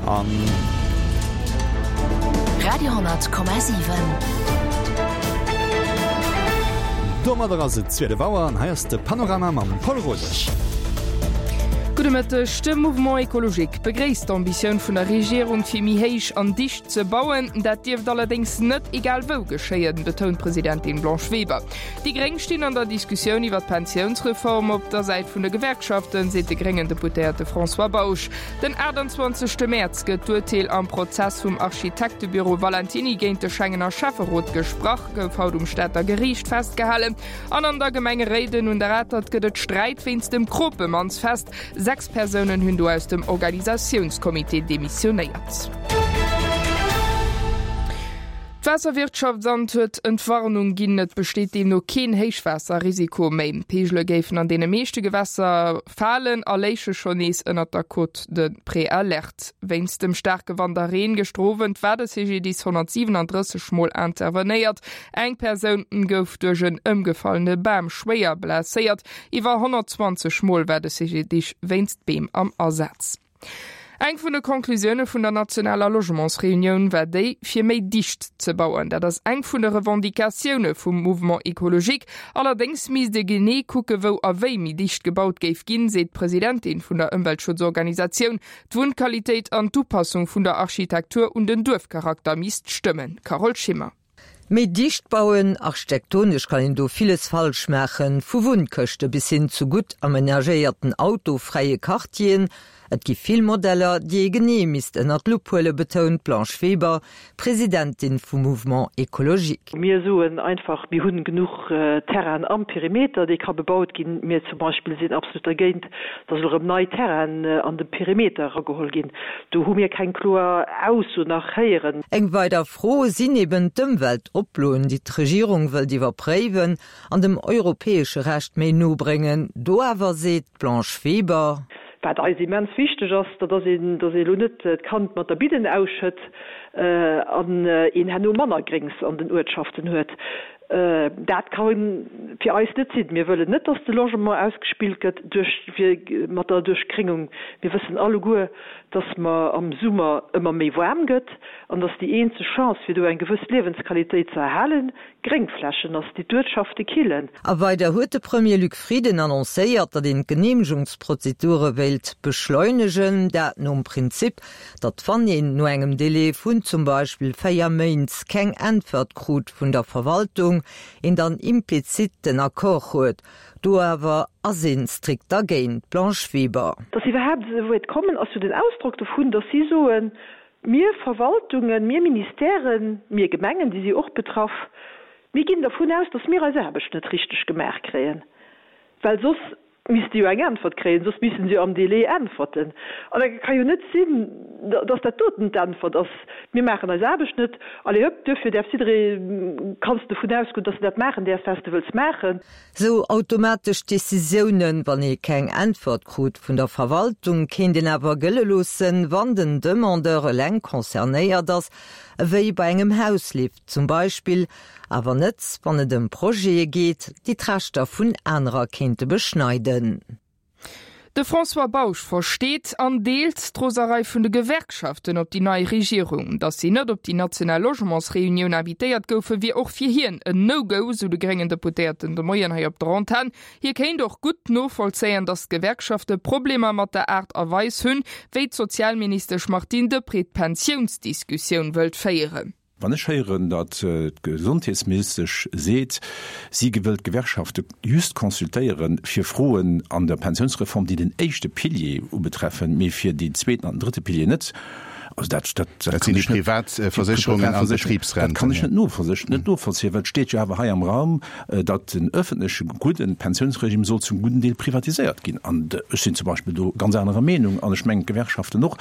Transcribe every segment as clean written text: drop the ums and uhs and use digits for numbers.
An. Radio,7. Domadder ass et 12 Auer an hei ass de Panorama mam Paul Rodesch. Gudde Mëtteg. De Mouvement Ecologique begréisst d'Ambitioun vun der Regierung fir méi héich an dicht ze bauen. Dat dierft allerdéngs net egal wou geschéien, betount d'Presidentin Blanche Weber. Déi Gréng stinn an der Diskussioun iwwer d'Pensiounsreform op der Säit vun de Gewerkschaften, seet de gréngen Deputéierte François Bausch. Den 28 Mäerz gëtt d'Urteel am Prozess vum Architektebüro Valentiny géint de Schengener Schäfferot gesprach, gouf haut um Stater Geriicht festgehalen. An an der Gemeng Réiden un der Atert gëtt et Sträit wéinst dem Kropemannsfest. 6 Persounen hunn do aus dem Organisatiounscomité demissionéiert. D'Waasserwirtschaftsamt huet Entwarnung ginn, Et besteet deemno keen Héichwaasserrisiko méi. D'Peegele géifen an deene meeschte Gewässer falen a léiche schonn nees ënnert der Cote de Préalerte. Wéinst dem staarke Wand a Reen gëschter Owend war de CGDIS 137 Mol intervenéiert. Eng Persoun gouf duerch en ëmgefallene Bam schwéier blesséiert. Iwwer 120 Mol war de CGDIS wéinst Beem am Asaz. Eng vun de Conclusioune vun der nationaler Logementsreunioun war déi, fir méi dicht ze bauen. Dat ass eng vun de Revendicatioune vum Mouvement Ecologique. Allerdéngs misst ee genee kucke wou a wéi méi dicht gebaut géif ginn, seet d'Presidentin vun der Ëmweltschutzorganisatioun. D'Wunnqualitéit an d'Upassung vun der Architektur un den Duerfcharakter misst stëmmen. Carole Schimmer. Méi dicht bauen, architektonesch kann een do villes falsch maachen, vu Wunnkëschte bis hin zu gutt amenagéierten autofräie Quartieren. Et gi vill Modeller, déi ee genee misst ënner d'Lupp huelen, betount d'Blanche Weber, Presidentin vum Mouvement Ecologique. Mir soen einfach, mir hunn genuch Terrainen am Perimeter, dee ka bebaut ginn. Mir zum Beispill sinn absolut dergéint, dass elo erëm nei Terrainen an de Perimeter erageholl ginn. Do hu mir keng kloer Ausso nach héieren. Eng weider Fro sinn eben d'Ëmweltoploen, déi d'Regierung wëllt iwwerpréiwen an dem europäesche Recht méi no bréngen. Do awer seet d'Blanche Weber. Wat eis immens wichteg ass, dat ass een, datt ee elo net d'Kand mat der Bidden ausschëtt an een herno manner Gréngs an den Uertschaften huet. Dat ka fir eis net sinn. Mir wëllen net, datt de Logement ausgespillt gëtt duerch, mat der Duerchgréngung. Mir wëssen alleguer, datt mer am Summer ëmmer méi waarm gëtt an datt déi eenzeg Chance, fir do eng gewëss Liewensqualitéit ze erhalen, Gréngflächen ass, déi d'Uertschafte killen. A weider huet de Premier Luc Frieden annoncéiert, datt een d'Geneemegungsprozedure wéilt beschleunegen, dat nom Prinzip, datt wann een no engem Délai vun zum Beispill 4 Méint keng Äntwert krut vun der Verwaltung, een dann implizit den Accord huet. Do awer ass een strikt dergéint. Blanche Weber. Datt se iwwerhaapt esou wäit kommen, ass jo den Ausdrock dovun, datt si soen, Mir Verwaltungen, mir Ministèren, mir Gemengen, déi si och betraff, mir ginn dervun aus, datt mir eis Aarbecht net richteg gemaach kréien, well soss misste jo eng Äntwert kréien, soss misste se jo am Délai äntwerten. An da ka jo net sinn, dass dat doten d'Äntwert ass, Mir maachen eis Aarbecht net, allez hëpp, duerfir däerf jidderee, kanns de dovun ausgoen, dass de dat maachen däerfs, wat s de wëlls maachen. Sou automatesch Decisiounen, wann ee keng Äntwert krut vun der Verwaltung, kéint een awer gëlle loossen, wann den Demandeur eleng concernéiert ass, ewéi bei engem Hauslift zum Beispill, Awer net, wann et ëm Projete geet, déi d'Rechter vun anerer kéinte beschneiden. De François Bausch versteet an deelt d'Roserei vun de Gewerkschaften op déi nei Regierung. Datt si net op déi national Logementsreunioun invitéiert goufen, wier och fir hien en No-Go, sou de gréngen Deputéierten de Moien hei op der Antenn. Hie kéint och gutt novollzéien, datt d'Gewerkschafte Problemer mat der Aart a Weis hunn, wéi d'Sozialministesch Martine Deprez d'Pensiounsdiskussioun wëllt féieren. Wann ech héieren, datt d'Gesondheetsministesch seet, si wëllt d'Gewerkschafte just consultéieren, fir Froen an der Pensiounsreform, déi den éischte Pilier ubetreffen, mee fir deen zweeten an den drëtte Pilier net, also dat, dat, dat sinn déi privat Versécherungen an d'Betribsrenten, dat kann ech net novollzéien, well et steet jo awer hei am Raum, datt den öffentleche gudden Pensiounsregime soll zum gudden Deel privatiséiert ginn. An ech sinn zum Beispill do ganz anerer Meenung an ech mengen d'Gewerkschaften och.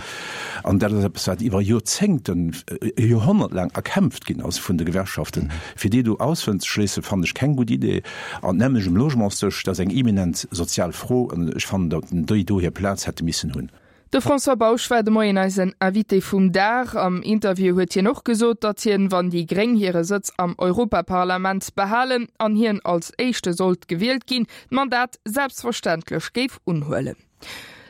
An dat ass eppes, wat iwwer Joerzéngten, e Joerhonnert laang erkämpft ginn ass vun de Gewerkschaften. Fir déi do auszeschléissen, fannen ech keng gutt Idee. An d'nämmlecht um Logementsdësch, dat ass eng eminent sozial Fro an ech fannen, datt déi do hir Plaz hätte missen hunn. De François Bausch war de Moien eisen Invité vum Dag. Am Interview huet hien och gesot, datt hien, wann déi Gréng hire Sëtz am Europaparlament behalen an hien als Éischte sollt gewielt ginn, d'Mandat selbstverständlech géif unhuelen.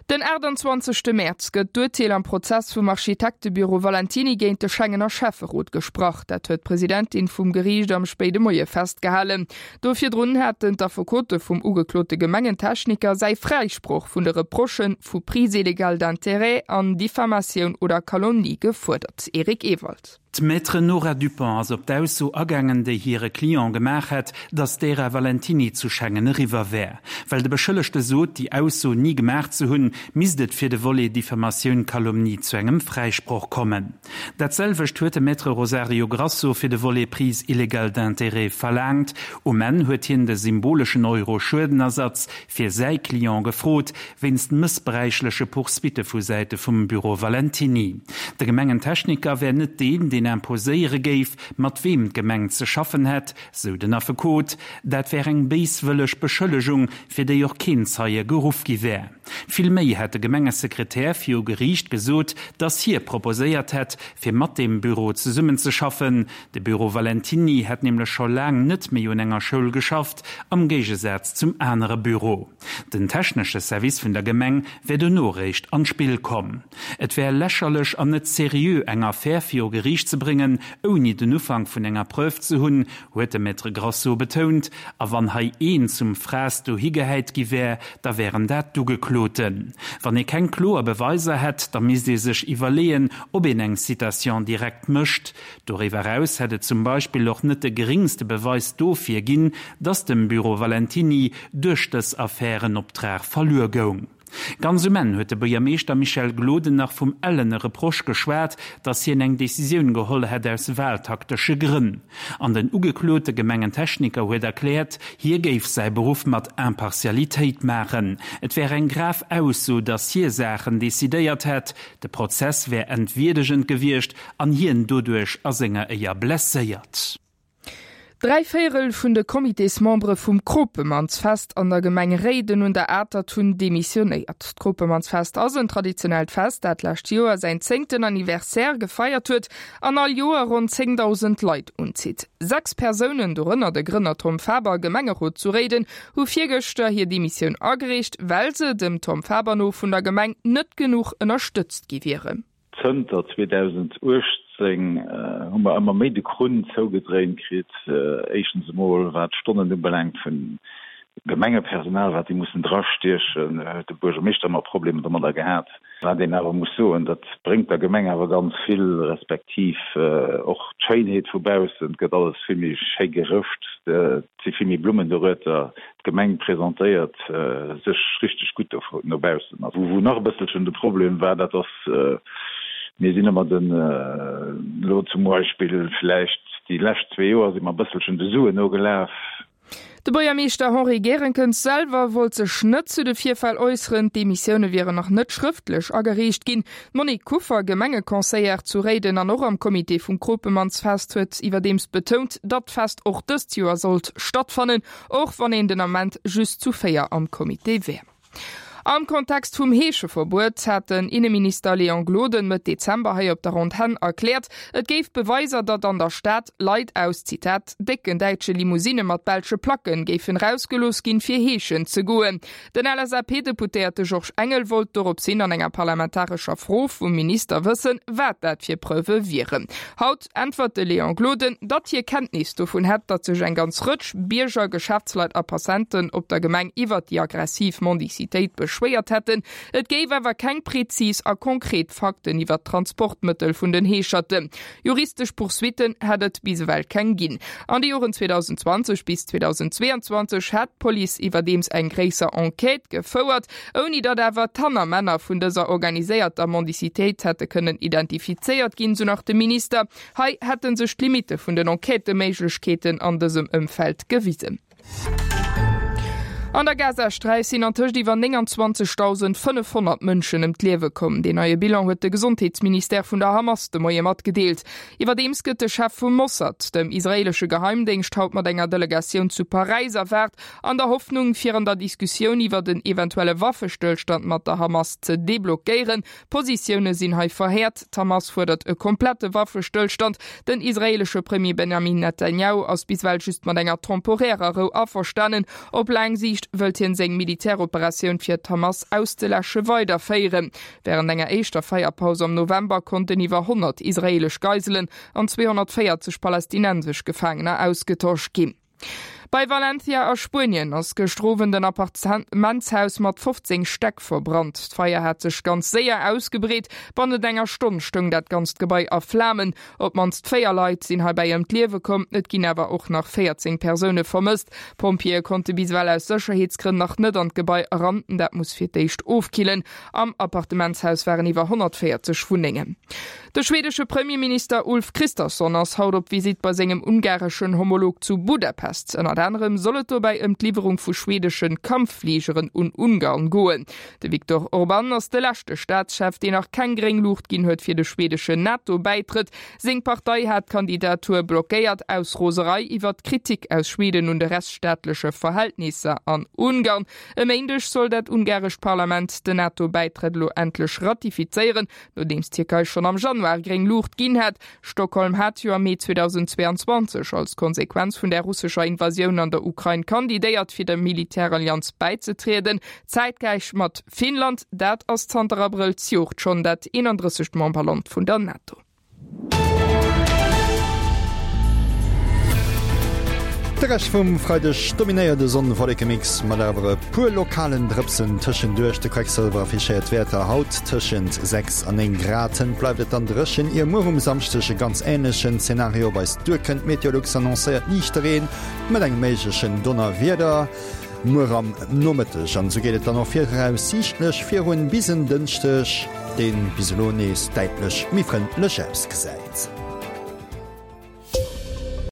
Den 28 Mäerz gëtt d'Urteel am Prozess vum Architektebüro Valentiny géint de Schengener Schäfferot gesprach. Dat huet d'Presidentin vum Geriicht am spéide Moie festgehalen. Do virdrun haten d'Affekote vum ugeklote Gemengentechniker säi Fräisproch vun de Reprochë vu Prise illégale d'intérêts an Diffamatioun oder Calomnie gefuerdert. Eric Ewald. D'Maître Nora Dupont ass op d'Ausso agaangen, déi hire Client gemaach hätt, datt d'Ära Valentiny zu Schengen eriwwer wär. Well de Beschëllegte sot, déi Ausso ni gemaach ze hunn, misst et fir de Volet Diffamatioun, Calomnie zu engem Fräisproch kommen. Dat selwecht huet de Maître Rosario Grasso fir de Volet Prise illégale d'intérêts verlaangt. Um Enn huet hien de symboleschen Euro Schuedenersatz fir säi Client gefrot, wéinst mëssbräichleche Poursuitte vu Säite vum Büro Valentiny. De Gemengentechniker wär net deen, deen imposéiere géif, mat weem d'Gemeng ze schaffen hätt, sou den Affekot. Dat wär eng béiswëlleg Beschëllegung, fir déi och keen Zeie geruff gi wär. Vill méi hätt de Gemengesekretär viru Geriicht gesot, datt hie proposéiert hätt, fir mat deem Büro zesummenzeschaffen. De Büro Valentiny hätt nämlech scho laang net méi un enger Schoul geschafft, am Géigesaz zum anere Büro. Den technesche Service vun der Gemeng wär dono réischt an d'Spill komm. Et wär lächerlech an net seriö eng Affär viru Geriicht ze bréngen, ouni den Ufank vun enger Preuve ze hunn, huet de Maître Grasso betount. A wann hei een zum Fraass dohi gehäit gi wär, da wären dat d'Ugekloten. Wann ee keng kloer Beweiser hätt, da misst ee sech iwwerleeën, ob een eng Citation directe mécht. Doriwwer eraus hätt et zum Beispill och net de geringste Beweis dofir ginn, datt dem Büro Valentiny duerch dës Affär en Optrag verluer goung. Ganz um Enn huet de Buergermeeschter Michel Gloden nach vum ellene Reproche geschwat, datt hien eng Decisioun geholl hätt aus wahltaktesche Grënn. An den ugeklote Gemengentechniker huet erkläert, hie géif säi Beruff mat Impartialitéit maachen. Et wär eng grav Ausso, datt hie Saachen decidéiert hätt. De Prozess wär entwierdegend gewiescht an hien doduerch a senger Éier blesséiert. Dräivéierel vun de Comitésmembere vum Kropemannsfest an der Gemeng Réiden un der Atert hunn demissionéiert. D'Kropemannsfest ass en traditionellt Fest, dat d'lescht Joer säin zéngten Anniversaire gefeiert huet an all Joer ronn 10.000 Leit unzitt. 6 Persounen, dorënner de Grënner Tom Faber, Gemengerot zu Réiden, hu virgëschter hir Demissioun agereecht, well se, dem Tom Faber no, vun der Gemeng net genuch ënnerstëtzt gi wieren. Zënter 2018 hu mer ëmmer méi de Krunn zougedréint kritt. Éischtens emol wat d'Stonnen ubelaangt vun Gemengepersonal, wat déi mussen drastiechen, huet de Buergermeeschter ëmmer Problemer domadder gehat. Wat een awer muss soen, dat bréngt der Gemeng awer ganz vill, respektiv och d'Schéinheet vu baussen. Et gëtt alles vill méi schéi gerëscht, et si vill méi Blummen dorueter. D'Gemeng presentéiert sech richteg gutt do no baussen. A wou nach e bësselchen de Problem war, dat ass, mir sinn ëmmer den, elo zum Beispill vläicht déi lescht zwee Joer si mer e bësselchen de Suen nogelaf. De Buergermeeschter Henri Gerenkens selwer wollt sech net zu de Virfäll äusseren. D'Demissioune wieren nach net schrëftlech agereecht ginn. D'Monique Kuffer, Gemengeconseillère zu Réiden an och am Comité vum Kropemannsfest, huet iwwerdeems betount, datt d'Fest och dëst Joer sollt stattfannen. Och wann een den Ament just zu 4 am Comité wär. Am Kontext vum Heescheverbuet hat den Inneminister Léon Gloden Mëtt Dezember hei op der Antenn erkläert, et géif Beweiser, datt an der Stad Leit aus, Zitat, décken däitsche Limousinne mat belsche Placken géifen erausgelooss ginn, fir heeschen ze goen. Den LSAP-Deputéierte Georges Engel wollt dorops hin an enger parlamentarescher Fro vum Minister wëssen, wat dat fir Preuve wieren. Haut äntwert de Léon Gloden, datt hie Kenntnis dovun hätt, datt sech eng ganz Rëtsch Bierger, Geschäftsleit a Passanten op der Gemeng iwwert déi aggressiv Mendicitéit beschwéiert hätten. Et géif awer keng prezis a konkret Fakten iwwert d'Transportmëttel vun den Heescherten. Juristesch Poursuitten hätt et bis ewell keng ginn. An de Joren 2020 bis 2022 hätt d'Police iwwerdeems eng gréisser Enquête gefouert, ouni datt awer d'Hannermänner vun dëser organiséierter Mendicitéit hätte kënnen identifizéiert ginn, sou nach de Minister. Hei hätte sech d'Limitte vun den Enquêtëméiglechkeeten an dësem Ëmfeld gewisen. An der Gazasträif sinn antëscht iwwer 29.500 Mënschen ëm d'Liewe komm. Deen neie Bilan huet de Gesondheetsministère vun der Hamas de Moie matgedeelt. Iwwerdeems gëtt de Chef vum Mossad, dem israeelesche Geheimdéngscht, haut mat enger Delegatioun zu Paräis erwaart, an der Hoffnung, fir an der Diskussioun iwwert en eventuelle Waffestëllstand mat der Hamas ze deblockéieren. D'Positioune sinn hei verhäert, D'Hamas fuerdert e komplette Waffestëllstand. Den israeelesche Premier Benjamin Netanjahu ass bis ewell just mat enger temporärer Rou averstanen. Op laang Siicht. Donieft wëllt hien seng Militäroperatioun fir d'Hamas auszeläsche weiderféieren. Wärend enger éischter Feierpaus am November konnten iwwer 100 israeelesch Geiselen an 240 palästinensesch Gefaangener ausgetosch ginn. Bei Valencia a Spuenien ass gëschter Owend en Appartementshaus mat 15 Stäck verbrannt. D'Feier hat sech ganz séier ausgebreet. Bannent enger Stonn stoung dat ganzt Gebai a Flamen. Op d'mannst 4 Leit sinn heibäi ëm d'Liewe komm, et ginn awer och nach 14 Persoune vermësst. D'Pompjeeë konnte bis ewell aus Sécherheetsgrënn nach net an d'Gebai eran. Dat muss fir d'éischt ofkillen. Am Appartementshaus waren iwwer 140 Wunnengen. De schwedesche Premierminister Ulf Kristersson ass haut op Visitt bei sengem ungareschen Homolog zu Budapest. Ënnert anerem soll et dobäi ëm d'Liwwerung vu schwedesche Kampffligeren un Ungarn goen. De Viktor Orban ass de leschte Staatschef, deen nach keng gréng Luucht ginn huet fir de schwedeschen NATO-Bäitrëtt. Seng Partei hat d'Kandidatur blockéiert, aus Roserei iwwer d'Kritik aus Schweden un de rechtsstaatleche Verhältnisser an Ungarn. E Méindeg soll dat ungarescht Parlament den NATO-Bäitrëtt elo endlech ratifizéieren, nodeems d'Tierkei schonn am Januar gréng Luucht ginn hat. Stockholm hat jo am Mee 2022 als Konsequenz vun der russescher Invasioun an der Ukrain kandidéiert, fir der Militärallianz bäizetrieden, zäitgläich mat Finnland. Dat ass zanter Abrëll zejoert schonn dat 31. Memberland vun der NATO. De Rescht vum Freideg dominéiert e Sonn-Wollekemix mat awer e puer lokalen Drëpsen tëschenduerch. De Quecksëlwer affichéiert Wäerter haut tëschent 6 a 9 Grad. Hënt bleift et dann dréchen, ier muer um Samschdeg e ganz änlechen Zenario op eis duerkënnt. Meteolux annoncéiert liichte Reen mat engem méiglechen Donnerwieder muer am Nomëtteg. An esou geet et dann och viraussiichtlech virun bis en Dënschdeg, deen bis elo nees däitlech méi frëndlech ausgesäit.